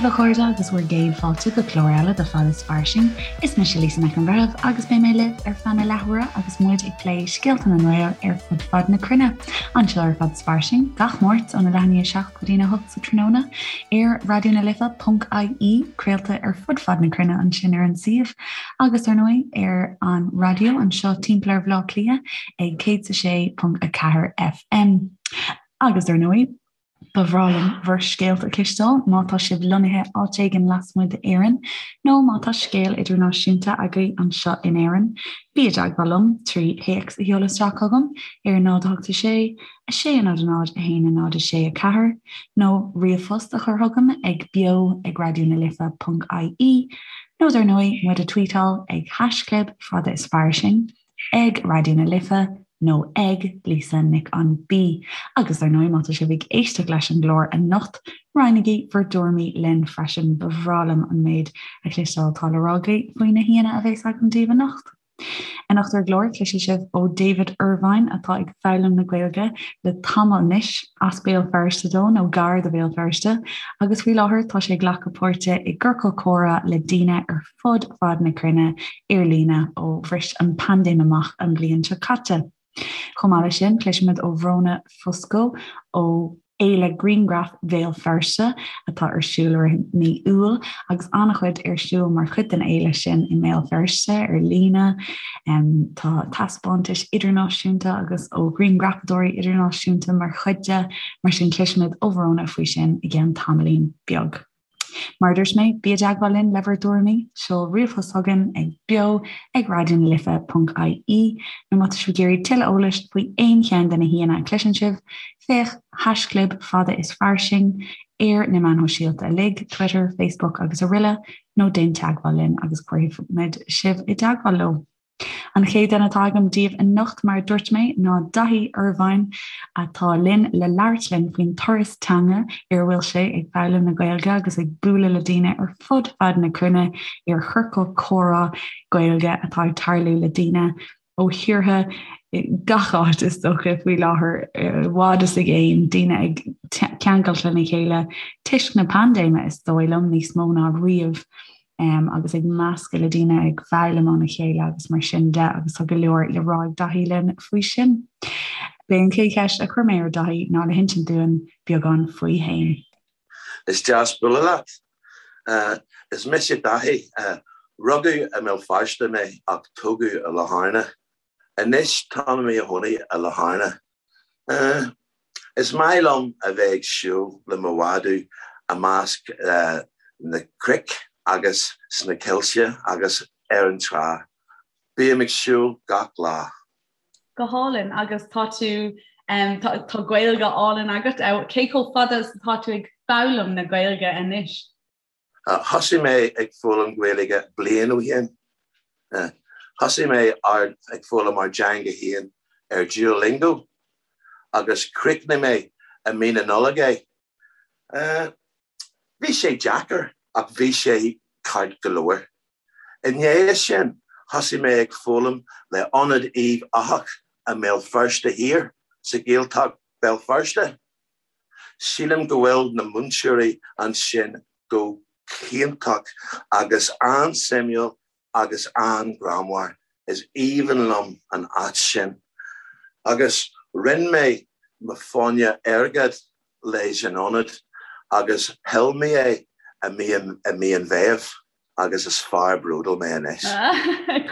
daoibh a chairde agus bhur gcéad fáilte go clár eile de Fada is Fairsing. Is mise Lisa Nic an Bhreithimh agus beidh mé libh ar feadh na leathuaire agus muid ag plé scéalta na nGael ar fud fad na cruinne. Anseo ar Fada is Fairsing, gach Máirt óna leath i ndiaidh 7 go dtína 8 sa tráthnóna ar raidionalife.ie, craolta ar fud fad na cruinne ansin ar an suíomh agus ar ndóigh ar an raidió anseo timpeall ar Bhaile Átha Cliath ag 106.4 FM. Agus ar ndóigh, Ba bhreá liom bhur scéalta a chloisteáil má tá sibh lonnaithe áit éigin lasmuigh d'Éirinn nó má tá scéal idirnáisiúnta agaibh anseo in Éirinn. Bí i dteagmháil liom trí théacs a sheoladh isteach chugam ar 0 8 6 6 0 0 1 0 6 4 nó ríomhphost a chur chugam ag beo ag raidionalife.ie nó dar ndóigh muid a tweetáil ag haischlib fada is fairsing. ag Raidió na Life nó ag Lisa Nic an B. Agus ar ndóigh má tá sibh ag éisteacht leis an gclár anocht, roinnigí bhur dtuairimí linn freisin, ba bhreá liom an méid a chloisteáil atá le rá agaibh faoi na haíonna a bheas agam daoibh anocht. Anocht ar an gclár, cloisfidh sibh ó David Irvine atá ag foghlaim na Gaeilge le tamall anois, as Béal Feirste dó nó gar do Bhéal Feirste, agus faoi láthair tá sé ag glacadh páirte i gciorcal comhrá le daoine ar fud fad na cruinne ar líne ó bhris an paindéim amach an bhliain seo caite. Chomh maith leis sin, cloisfimid ó Bhróna Fusco ó Fhéile Grianghraf Bhéal Feirste atá ar siúl i rith mí Iúil agus an-chuid ar siúl mar chuid den fhéile sin i mBéal Feirste ar líne. Tá taispeántais idirnáisiúnta agus ó ghrianghrafadóirí idirnáisiúnta mar chuid de, mar sin cloisfimid ó Bhróna faoi sin i gceann tamaillín beag. Mar a dúirt mé, bí i dteagmháil linn le bhur dtuairimí, seol ríomhphost chugainn ag beo ag raidionalife.ie nó má tá sibh ag iarraidh tuilleadh eolais faoi aon cheann de na haíonna a chloiseann sibh, féach haischlib fada is fairsing ar na meáin shóisialta uilig, Twitter, Facebook agus aroile, nó déan teagmháil linn agus cuirfimid sibh i dteagmháil leo. An chéad duine atá agam daoibh anocht, mar a dúirt mé, ná Daithí Irvine, atá linn le labhairt linn faoin turas teanga ar a bhfuil sé ag foghlaim na Gaeilge agus ag bualadh le daoine ar fud fad na cruinne ar chiorcal comhrá Gaeilge atá ag tarlú le daoine ó thíortha gach áit is dócha faoi láthair, i bhfad is i gcéin, daoine ag ceangailt lena chéile toisc na paindéime is dóigh liom, níos mó ná riamh. um, agus ag meascadh le daoine ag foghlaim óna chéile agus mar sin de agus tá go leor le rá ag Daithí linn faoi sin. B'é an chéad cheist a chuir mé ar Daithí ná le hinsint dúinn beagán faoi fhéin. Is deas bualadh leat. Uh, is mise Daithí. Uh, rugadh i mBéal Feirste mé ach tógadh i Latharna. Anois táim i mo chónaí i Latharna. Is maith liom a bheith ag siúl le mo mhadadh i measc na cnoic agus sna coillte agus ar an trá. Bím ag siúl gach lá. Go hálainn agus tá tú tá Gaeilge álainn agat. Cé chomh fada is atá tú ag foghlaim na Gaeilge anois? Thosaigh mé ag foghlaim Gaeilge bliain ó shin. Thosaigh mé ag foghlaim ár dteanga féin ar Duolingo agus chríochnaigh mé i mí na Nollag é. Bhí sé deacair ach bhí sé ceart go leor. I ndiaidh sin, thosaigh mé ag foghlaim le Ionad Uíbh Eachach i mBéal Feirste Thiar sa Ghaeltacht Béal Feirste. Sílim go bhfuil na múinteoirí ansin go hiontach agus an-suimiúil agus an-ghreannmhar. Is aoibhinn liom an áit sin. Agus rinne mé mo fáinne airgid leis an ionad agus thuill mé é i mí an Mheithimh. agus is fear bródúil mé anois.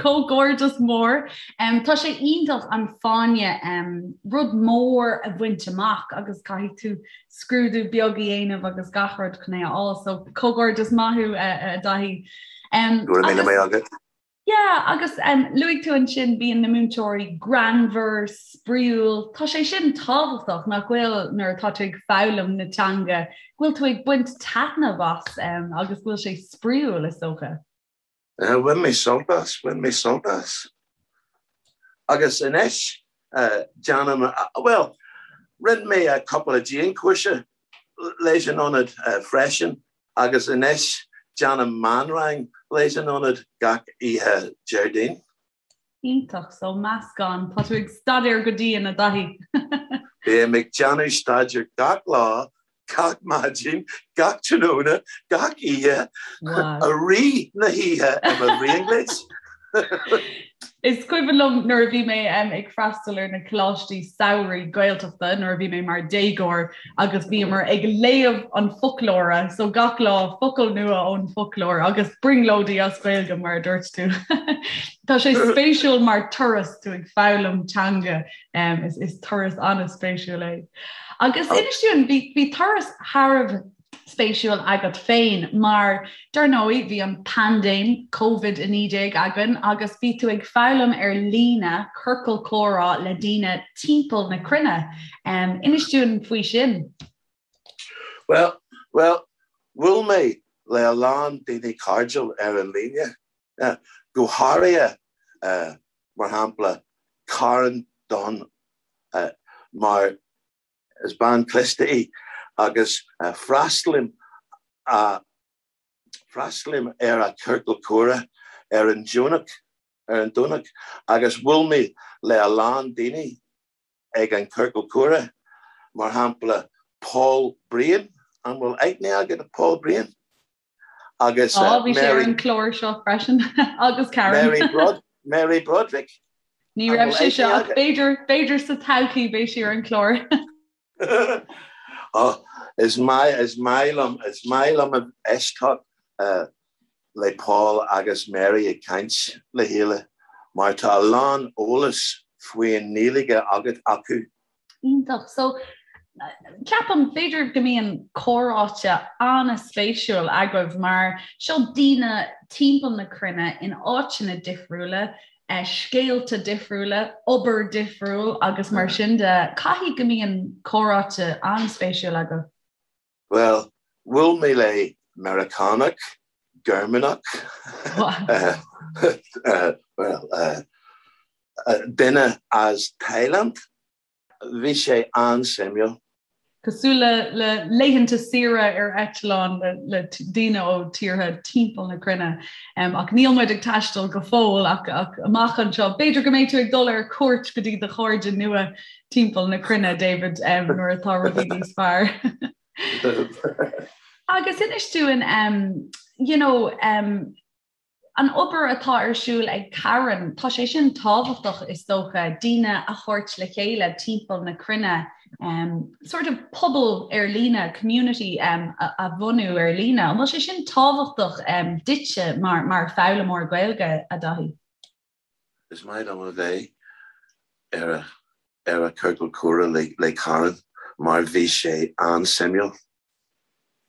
Comhghairdeas mór. Tá sé iontach an fáinne, rud mór a bhaint amach agus caithfidh tú scrúdú beag a dhéanamh agus gach rud chun é a fháil. So comhghairdeas maith thú a Dhaithí. Go raibh míle maith agat. Yeah, agus luaigh tú ansin bíonn na múinteoirí greannmhar, spraíúil. Tá sé sin tábhachtach nach bhfuil nuair atá tú ag foghlaim na teanga, go bhfuil tú ag baint taitneamh as agus go bhfuil sé spraíúil is dócha. Bhain mé sult as, bhain mé sult as. Agus anois déanaim, bhuel, rinne mé cúpla dianchúrsa leis an ionad freisin Agus anois déanaim meánrang leis an ionad gach oíche Déardaoin. Iontach, so meascán. Tá tú ag staidéar go dian, a Dhaithí. Bím ag déanamh staidéar gach lá. gach maidin, gach tráthnóna, gach oíche, i rith na hoíche i mo bhrionglóid. Is cuimhin liom nuair a bhí mé ag freastal ar na coláistí samhraidh Gaeltachta nuair a bhí mé mar déagóir agus bhíomar ag léamh an foclóra, so gach lá focal nua ón foclóir agus brionglóidí as Gaeilge mar a dúirt tú. Tá sé spéisiúil mar turas tú ag foghlaim teanga is, is turas an-spéisiúil é. Agus inis dúinn bhí, bhí turas thar a bheith spéisiúil agat féin mar dar ndóigh bhí an paindéim Covid-19 againn agus bhí tú ag foghlaim ar líne ciorcal comhrá le daoine timpeall na cruinne. Um, inis dúinn faoi sin. Well, well, bhuail mé le a lán daoine cairdiúil ar an líne, uh, go háirithe uh, mar shampla Karen Dunn uh, mar Is bean cliste í agus freastalaím freastalaím ar a ciorcal comhrá ar an Domhnach ar an Domhnach agus bhuail mé le a lán daoine ag an ciorcal comhrá, mar shampla Paul Breen, an bhfuil aithne agat ar Paul Breen? Agus Á, bhí sé ar an chlár seo freisin agus Karen. Mary Brod Mary Broderick. Ní raibh sé seo ach b'fhéidir b'fhéidir sa todhchaí beidh sí ar an chlár. oh, is maith is maith liom is maith liom a éisteacht uh, le Paul agus Mary ag caint le chéile mar tá a lán eolas faoin nGaeilge agat acu. Iontach. So, ceapaim, b'fhéidir go mbíonn comhráite an-spéisiúil agaibh mar seo daoine timpeall na cruinne in áiteanna difriúla, eh, scéalta difriúla, obair difriúil agus mar sin de. Caithfidh go mbíonn comhráite an-spéisiúil agaibh. Bhuel, bhuail mé le Meiriceánach, Gearmánach, bhuel, duine as Thailand. Bhí sé an-suimiúil. Cosúil le le laethanta saoire ar eitleán le le daoine ó tíortha timpeall na cruinne. Ach níl muid ag taisteal go fóill ach ach amach anseo b'fhéidir go mbeidh tú ag dul ar cuairt go dtí do chairde nua timpeall na cruinne, David, nuair atá rudaí níos fearr. Agus inis dúinn, you know, an obair atá ar siúl ag Karen, tá sé sin tábhachtach is dócha, daoine a thabhairt le chéile timpeall na cruinne, um, sort of pobal ar líne, community um, a, a bhunú ar líne. An bhfuil sé sin tábhachtach um, duitse mar, mar foghlaimeoir Gaeilge, a Dhaithí? Is maith liom a bheith ar a ar a ciorcal comhrá le le Karen mar bhí sé an-suimiúil.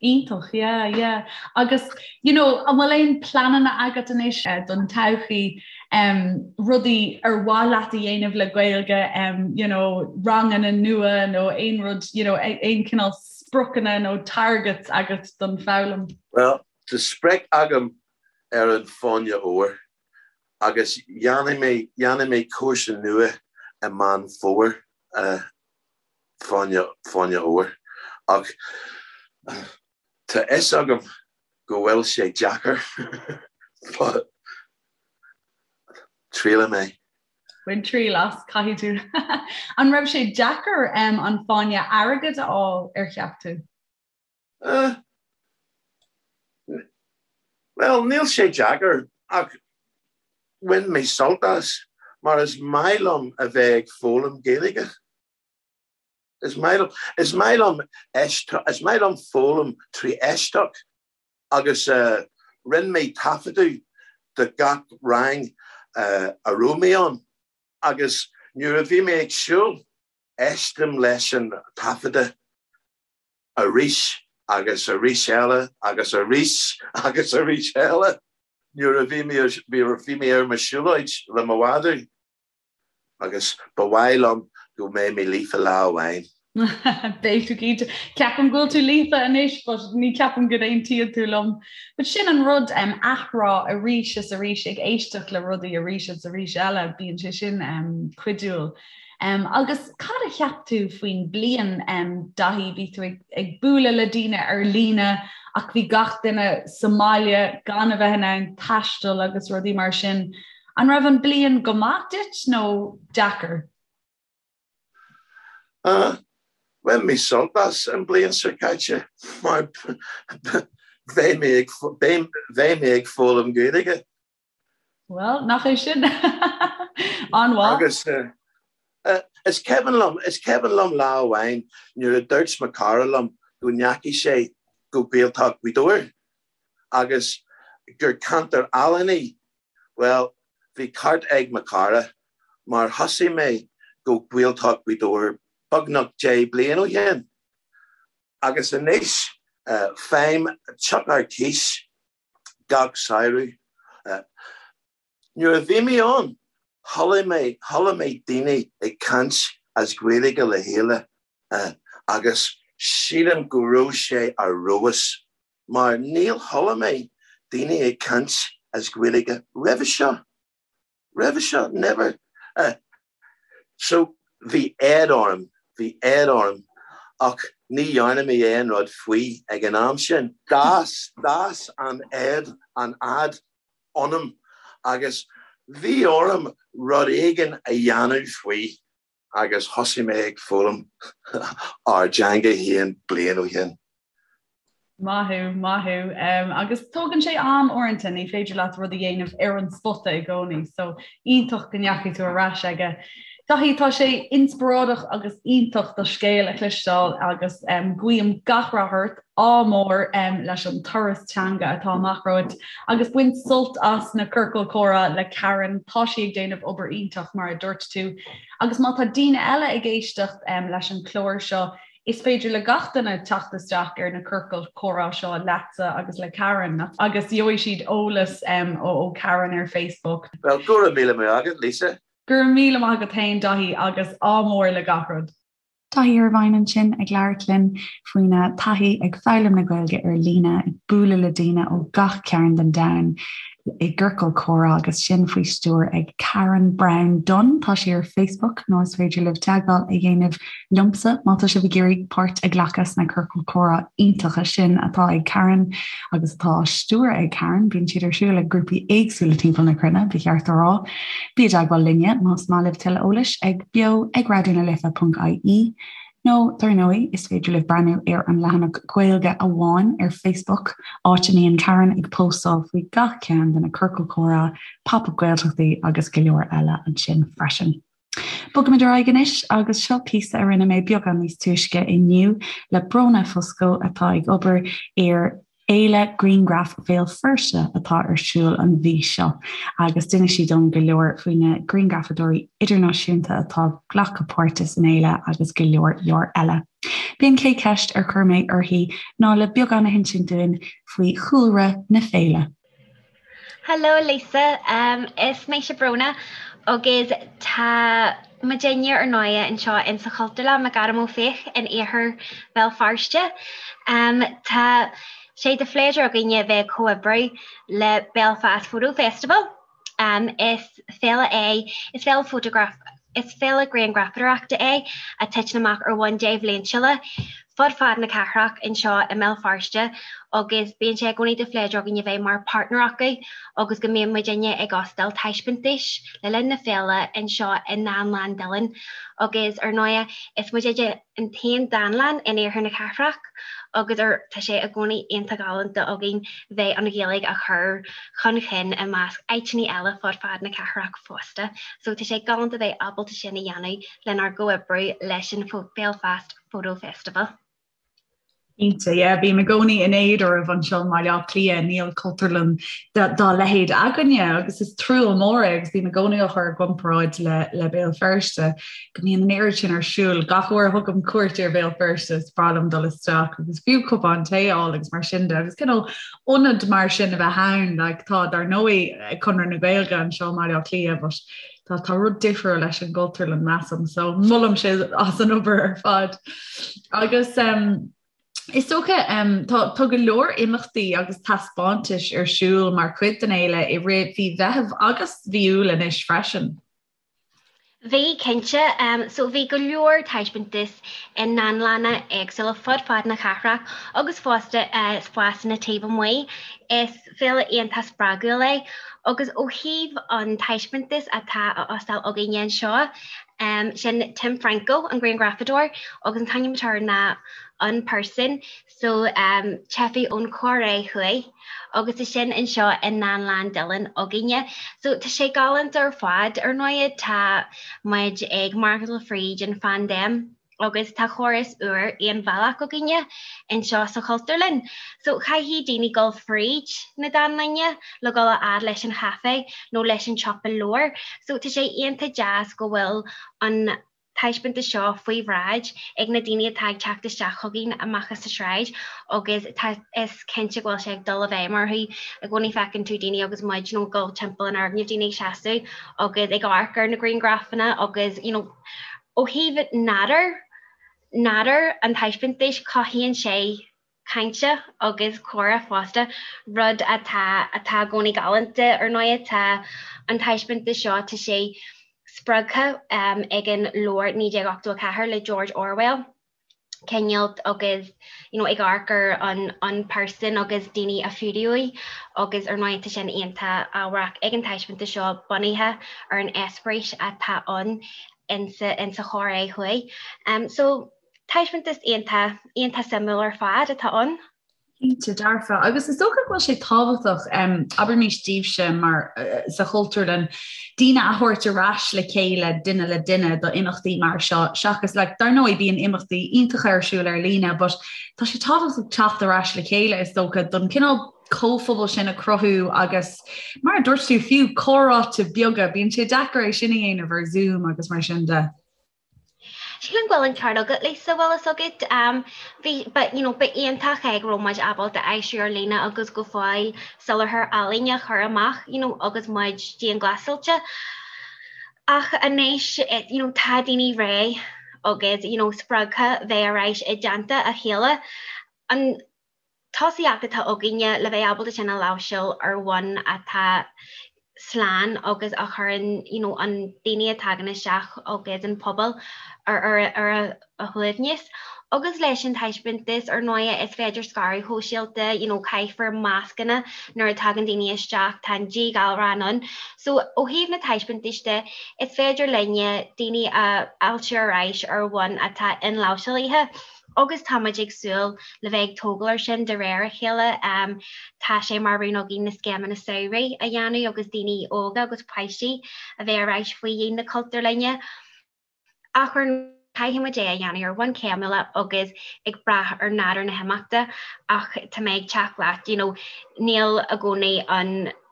Iontach, yeah, yeah. Agus, you know, an bhfuil aon pleananna agat anois don todhchaí, um, rudaí ar mhaith leat a dhéanamh le Gaeilge, um, you know, ranganna nua nó aon rud, you know, aon cineál spriocanna nó targets agat don foghlaim? Well, tá sprioc agam ar an Fáinne Óir agus dhéanfaidh mé, dhéanfaidh mé cúrsa nua i Meán Fómhair, Fáinne, Fáinne Óir. Ach tá fhios agam go bhfuil sé deacair but triailfidh mé. Bain triail as, caithfidh tú. An raibh sé deacair an Fáinne Airgid a fháil, ar cheap tú? Uh, bhuel, níl sé deacair ach bhain mé sult as mar is maith liom a bheith ag foghlaim Gaeilge. Is maith liom, is maith liom is maith liom foghlaim trí éisteacht agus uh, rinne mé taifeadadh de gach rang uh, a raibh mé ann agus nuair a bhí mé ag siúl éistim leis an taifeadadh arís agus arís eile agus arís agus arís eile nuair a bhí mé bhí mé ar mo siúlóid le mo mhadadh agus ba mhaith liom go mbeidh mé líofa lá amháin. Beidh tú cinnte. Ceapaim go bhfuil tú líofa anois but ní ceapaim go n-aontaíonn tú liom. But sin an rud um, athrá arís is arís ag éisteacht le rudaí arís is arís eile, bíonn sé sin um, cuidiúil. Agus cad a cheap tú faoin bliain, Daithí? Bhí tú ag bualadh le daoine ar líne ach bhí gach duine sa mbaile gan a bheith in ann taisteal agus rudaí mar sin. An raibh an bliain go maith duit nó deacair? Bhain mé sult as an bliain seo caite mar beidh mé ag beidh mé ag foghlaim Gaeilge. Bhuel, nach é sin an-mhaith. Agus is cuimhin liom, is cuimhin liom lá amháin nuair a dúirt mo cara liom go ndeachaigh sé go Gaeltacht Ghaoth Dobhair agus gur ceantar álainn í. Bhuel, bhí ceart ag mo cara mar thosaigh mé go Gaeltacht Ghaoth Dobhair beagnach 10 bliain ó shin agus anois faighim teach ar cíos gach samhradh. Nuair a bhí mé ann, chuala mé, chuala mé daoine ag caint as Gaeilge le chéile agus sílim go raibh sé ar fheabhas mar níor chuala mé daoine ag caint as Gaeilge roimhe seo. Roimhe seo, never. So, bhí éad orm, bhí éad orm ach ní dhearna mé aon rud faoi ag an am sin. D'fhás, d'fhás an éad, an fhadhb ionam agus bhí orm rud éigin a dhéanamh faoi agus thosaigh mé ag foghlaim ár dteanga féin bliain ó shin. Maith thú, maith thú. Agus tógann sé am uaireanta, ní féidir leat rud a dhéanamh ar an spota i gcónaí, so iontach go ndeachaigh tú ar ais aige. Daithí, tá sé inspioráideach agus iontach do scéal a chloisteáil agus guím gach rath ort, ádh mór leis an turas teanga atá amach romhat agus bain sult as na ciorcail comhrá le Karen, tá sí ag déanamh obair iontach mar a dúirt tú. Agus má tá daoine eile ag éisteacht leis an chlár seo, Is féidir le gach duine teacht isteach ar na ciorcail chomhrá seo leatsa agus le Karen agus gheobhaidh siad eolas ó Karen ar Facebook. Bhuel, go raibh míle maith agat, Lisa. Go raibh míle maith agat féin, Daithí, agus ádh mór le gach rud. Daithí Irvine ansin ag labhairt linn faoina taithí ag foghlaim na Gaeilge ar líne, ag bualadh le daoine ó gach cearn den domhan. i gciorcal comhrá agus sin faoi stiúir ag Karen Browne Dunne. Tá sí ar Facebook nó is féidir libh teagmháil a dhéanamh liomsa má tá sibh ag iarraidh páirt a ghlacadh sna ciorcail comhrá iontacha sin atá ag Karen agus atá á stiúradh ag Karen. Bíonn siad ar siúl ag grúpaí éagsúla timpeall na cruinne, ba cheart a rá. Bí i dteagmháil linne más maith libh tuilleadh eolais ag beo ag raidionalife.ie. Nó, dar ndóigh, is féidir libh breathnú ar an leathanach Gaeilge Amháin ar Facebook, áit a mbíonn Karen ag póstáil faoi gach ceann de na ciorcail chomhrá, Pop-Up Gaeltachtaí agus go leor eile ansin freisin. Bogaimid ar aghaidh anois agus seo píosa a rinne mé beagán níos túisce inniu le Bróna Fusco atá ag obair ar Fhéile Grianghraf Bhéal Feirste atá ar siúl an mhí seo agus d'inis sí dom go leor faoi na grianghrafadóirí idirnáisiúnta atá ag glacadh páirte san fhéile agus go leor leor eile. B'é an chéad cheist ar chuir mé uirthi ná le beagán a hinsint dúinn faoi chúlra na féile. Hello Lisa, is mise Bróna agus tá muidinne ar ndóighe anseo in sa Chultúrlann McAdam Ó Fiaich in iarthar Bhéal Feirste. Tá sé de phléisiúr againne bheith ag comhoibriú le Belfast Photo Festival. Is féile é, is féile fótagraf, is féile grianghrafadóireachta é a titeann amach ar bhonn débhliantúla fud fad na cathrach anseo i mBéal Feirste agus bíonn sé i gcónaí de phléisiúr againn a bheith mar páirtneir acu agus go mbíonn muidinne ag óstáil taispeántais le linn na féile anseo i nDánlann Dillon agus ar ndóighe is muidinne an t-aon dánlann in iarthar na cathrach agus ar tá sé i gcónaí iontach galánta againn bheith an Ghaeilge a chur chun chinn i measc áiteanna eile fud fad na cathrach fosta. So tá sé galánta bheith ábalta sin a dhéanamh lenár gcomhoibriú leis an Belfast Photo Festival. Cinnte, yeah, bím i gcónaí in éad oraibh anseo i mBaile Átha Cliath, níl cultúrlann dá leithéid againne agus is trua mór é agus bím i gcónaí á chur i gcomparáid le, le Béal Feirste go mbíonn an oiread sin ar siúl. Gach uair a thugaim cuairt ar Bhéal Feirste is breá liom dul isteach agus fiú cupán tae a fháil agus mar sin de agus cineál ionad mar sin a bheith ann, like, tá dar ndóigh Conradh na Gaeilge anseo i mBaile Átha Cliath but Tá tá rud difriúil leis an gcultúrlann measaim, so molaim sibh as an obair ar fad. Agus um, is dócha um, tá, tá go leor imeachtaí agus taispeántais ar siúl mar chuid den fhéile i rith mhí Mheithimh agus mhí Iúil anois freisin. Bhí, cinnte. Um, so bhí go leor taispeántas i ndánlanna éagsúla fud fad na cathrach agus fosta uh, spásanna taobh amuigh. Is féile iontach spreagúil é agus ó thaobh an taispeántas atá á óstáil againne anseo. Sin Tim Franco, an grianghrafadóir, agus an t-ainm atá air ná Unperson, so teifigh ón Chóiré Thuaidh, agus tá sin anseo i nDánlann Dillon againne. So tá sé galánta ar fad. Ar ndóighe tá muid ag maireachtáil fríd an phaindéim agus tá córas úr aon bhealach againne anseo sa Chultúrlann. So caithfidh daoine dul fríd na dánlainne le dul a fhad leis an chaifé nó leis an tsiopa leabhar. So tá sé iontach deas go bhfuil an taispeántas seo faoi bhráid ag na daoine atá ag teacht isteach chugainn amach as an sráid agus tá is cinnte go bhfuil sé ag dul i bhfeidhm orthu. I gcónaí feiceann tú daoine agus muid you know ag dul timpeall an fhoirgnimh, daoine ag seasamh agus ag amharc ar na grianghrafanna agus you know ó thaobh nádúr nádúr an taispeántais cothaíonn sé cainte agus comhrá fosta, rud atá atá i gcónaí galánta. Ar ndóighe tá an taispeántas seo, tá sé spreagtha ag an leabhar 1984 le George Orwell, cineál agus you know ag amharc ar an unperson agus daoine a fuadaíodh agus ar ndóighe tá sin iontach ábharach ag an taispeántas seo bunaithe ar an eispéireas atá ann insa insa Chóiré Thuaidh. So Taispeántas iontach, iontach suimiúil ar fad atá ann. Cinnte, dearfa. Agus is dócha go bhfuil sé tábhachtach, abraimis daoibhse mar sa Chultúrlann, daoine a thabhairt ar ais le chéile duine le duine do imeachtaí mar seo, seachas like, dar ndóigh bíonn imeachtaí iontacha ar siúl ar líne, but tá sé tábhachtach teacht ar ais le chéile is dócha don cineál comhphobal sin a chruthú agus mar a dúirt tú fiú comhráite beaga, bíonn sé deacair é sin a dhéanamh ar Zoom agus mar sin de. Sílim go bhfuil an ceart agat, Lisa, bhfuil fhios agat. Bhí, but, you know, ba iontach é go raibh muid ábalta aistriú ar líne agus go fóill soláthar ealaíne a chur amach, you know, agus muid dianghlasáilte. Ach anois, you know, tá daoine réidh agus, you know, spreagtha bheith ar ais i dteannta a chéile. An tosaíocht atá againne le bheith ábalta sin a láimhseáil ar bhonn atá slán agus a chuireann you know an daoine a tagann isteach agus an pobal ar ar ar a shuaimhneas. Agus leis an taispeántas ar ndóighe is féidir scaradh shóisialta you know caithfear mascanna nuair a tagann daoine isteach, tá an díghalrán ann. So ó thaobh na taispeántais de is féidir linne daoine a fháiltiú ar ais ar bhonn atá inláimhseálaithe. Agus tá muid ag súil le bheith ag tógáil air sin de réir a chéile. Tá sé mar rún againn na scéimeanna samhraidh a dhéanamh agus daoine óga agus páistí a bheith ar ais faoi dhíon na Cultúrlainne. Ach ar ndóigh, caithfidh muid é a dhéanamh ar bhonn céimiúla agus ag brath ar nádúr na himeachta ach tá mé ag teacht leat, you know, níl i gcónaí an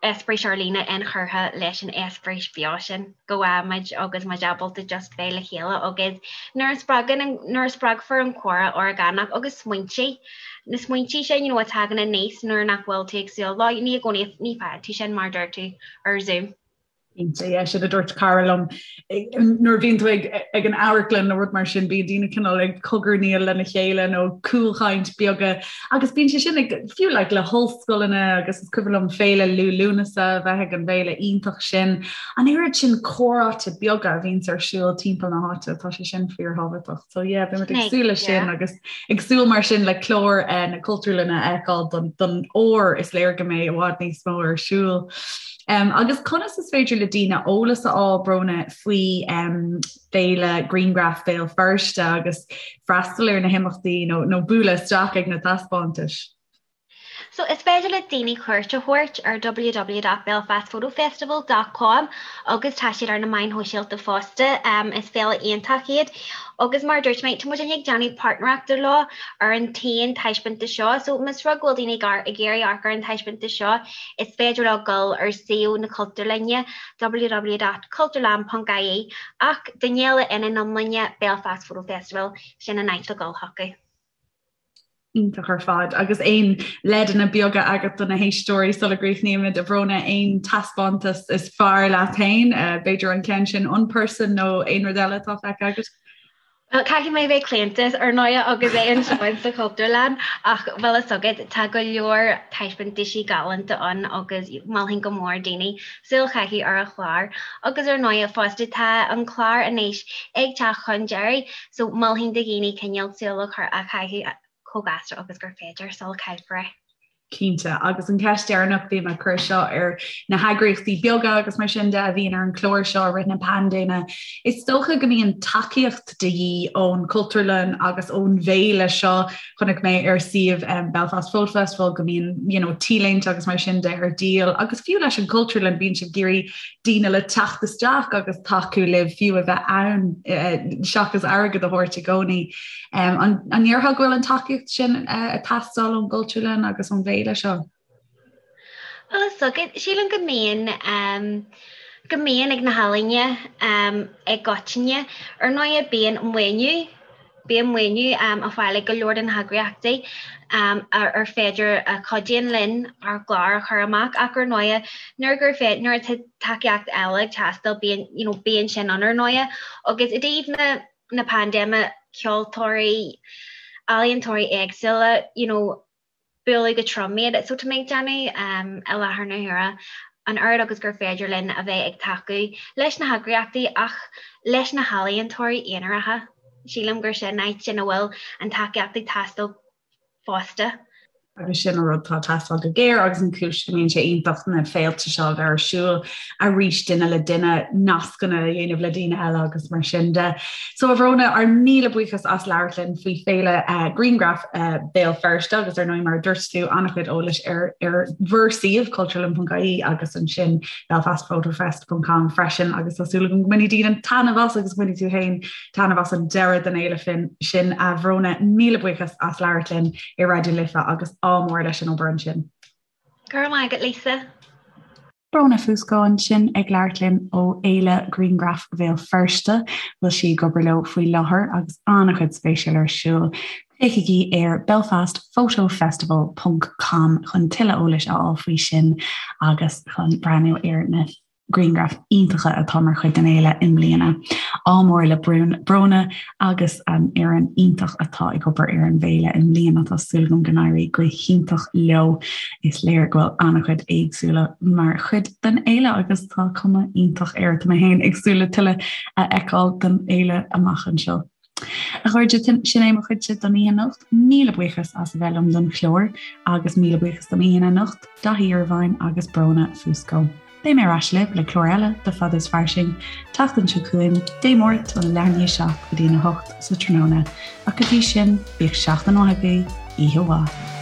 eispéireas ar líne inchurtha leis an eispéireas beo sin go bhfaighimid agus muid ábalta just bheith le chéile agus nuair a spreagann an, nuair a spreagfar an comhrá orgánach agus smaointe, na smaointe sin you know a tagann aníos nuair nach bhfuil tú ag súil leo, ní i gcónaí, ní faigheann tú sin mar a deir tú ar Zoom. Cinnte, yeah, sin a dúirt cara liom nuair a bhíonn tú ag, ag an amharclann nó rud mar sin, bíonn daoine cineál ag cogarnaíl lena chéile nó cúlchaint beaga agus bíonn sé sin ag fiú like, le hollscoileanna agus is cuimhin liom féile Liú Lúnasa a bheith ag an bhféile iontach sin. An oiread sin comhráite beaga a bhíonns ar siúl timpeall na háite, tá sé sin fíorthábhachtach. So yeah, beimid ag súil leis sin agus ag súil mar sin le clár eh, na Cultúrlainne a fheiceáil don, don fhómhar is léir go mbeidh i bhfad níos mó ar siúl. Um, agus conas is féidir le daoine eolas a fháil Bróna faoi um, Féile Grianghraf Bhéal Feirste agus freastal ar na himeachtaí nó, nó bualadh isteach ag na taispeántais? So is féidir le daoine cuairt a thabhairt ar www.belfastphotofestival dot com agus tá siad ar na meáin shóisialta fosta. Is féile iontach iad agus mar a dúirt mé, tá muid ag déanamh páirtnéireachta leo ar an t-aon taispeántas seo. So más rud go bhfuil daoine ag iarraidh amharc ar an taispeántas seo, is féidir leo dul ar suíomh na Cultúrlainne, www.cultúrlann.ie ach don fhéile ina n-iomláine, Belfast Photo Festival, sin an áit le dul chucu. Iontach ar fad. Agus aon leideanna beaga agat do na héisteoirí sula gcríochnaímid, a Bhróna, aon taispeántas is fearr leat féin, b'fhéidir an ceann sin Unperson nó aon rud eile atá feicthe agat? Bhuel, caithfidh mé bheith claonta, ar ndóighe, agus é anseo sa Chultúrlann, ach bhfuil fhios agat, tá go leor taispeántaisí galánta ann agus mholfainn go mór daoine súil a chaitheamh ar an chlár. Agus ar ndóighe fosta, tá an clár anois ag teacht chun deiridh, So, mholfainn do dhaoine cineál súil a chur a chaitheamh chomh gasta agus gur féidir sula gcaillfear é. Cinnte, agus an cheist dheireanach, bím ag cur seo ar na heagraíochtaí beaga agus mar sin de a bhíonn ar an chlár seo i rith na paindéime, is dócha go mbíonn tacaíocht de dhíth ón Chultúrlann agus ón bhféile seo. Chonaic mé ar suíomh Belfast Photo Festival go mbíonn you know, T-léinte agus mar sin de ar díol agus fiú leis an Chultúrlann bíonn sibh ag iarraidh daoine le teacht isteach agus tacú libh fiú a bheith ann seachas airgead a thabhairt i gcónaí. An ndéarfá go bhfuil an tacaíocht sin ag teastáil ón gCultúrlann agus ón bhféile seo? Bhuel, is dócha, sílim go mbíonn, go mbíonn ag na healaíona i gcoitinne. Ar ndóighe, bíonn maoiniú, bíonn maoiniú á fáil ag go leor de na heagraíochtaí ar féidir a chuidíonn linn ár gclár a chur amach ach ar ndóighe, nuair gur féidir, nuair atá tacaíocht eile ag teastáil, bíonn, you know, bíonn sin ann ar ndóighe. Agus i dtaobh na. na paindéime, ceoltóirí, ealaíontóirí éagsúla, you know, buaileadh go trom iad. So tá mé ag déanamh i láthair na huaire an oiread agus gur féidir linn a bheith ag tacú leis na heagraíochtaí ach leis na healaíontóirí aonaracha. Sílim gur sin áit ina bhfuil an tacaíocht ag teastáil fosta. Agus sin an rud atá ag teastáil go géar agus an chúis go mbíonn sé iontach na féilte seo a bheith ar siúl arís duine le duine, nascanna a dhéanamh le daoine eile agus mar sin de. So a Bhróna, ár míle buíochas as labhairt linn faoi Féile Grianghraf Béal Feirste agus ar ndóigh mar a dúirt tú an-chuid eolais ar ar bhur suíomh cultúrlann.ie agus ansin belfastphotofest.com freisin agus tá súil agam go mbainfidh daoine taitneamh as agus go mbainfidh tú féin Taitneamh as an deireadh den fhéile fin sin, a Bhróna. Míle buíochas as labhairt linn i Raidió Life agus ádh mór leis an obair ansin. Go raibh maith agat, Lisa. Bróna Fusco ansin ag labhairt linn ó Fhéile Grianghraf Bhéal Feirste, bhfuil sí ag obair leo faoi láthair agus an-chuid spéisiúil ar siúl. Féachaigí ar belfastphotofestival ponc com chun tuilleadh eolais a fháil faoi sin agus chun breathnú ar na grianghraif iontacha atá mar chuid den fhéile i mbliana. Ádh mór le Bróna agus an fhoireann iontach atá ag obair ar an bhféile i mbliana. Tá súil agam go n-éirí go hiontach leo. Is léir go bhfuil an-chuid éagsúla mar chuid den fhéile agus tá cuma iontach air. Tá mé féin ag súil le tuilleadh a fheiceáil den fhéile amach anseo. A chairde, sin é mo chuidse don oíche anocht. Míle buíochas as a bheith liom don chlár agus míle buíochas don aíonna anocht, Daithí Irvine agus Bróna Fusco. Beidh mé ar ais libh le clár eile de Fada is Fairsing, tseachtain seo chugainn, Dé Máirt óna leath i ndiaidh 7 go dtí an 8 sa tráthnóna. Ach go dtí sin, bíodh seachtain mhaith agaibh, oíche mhaith.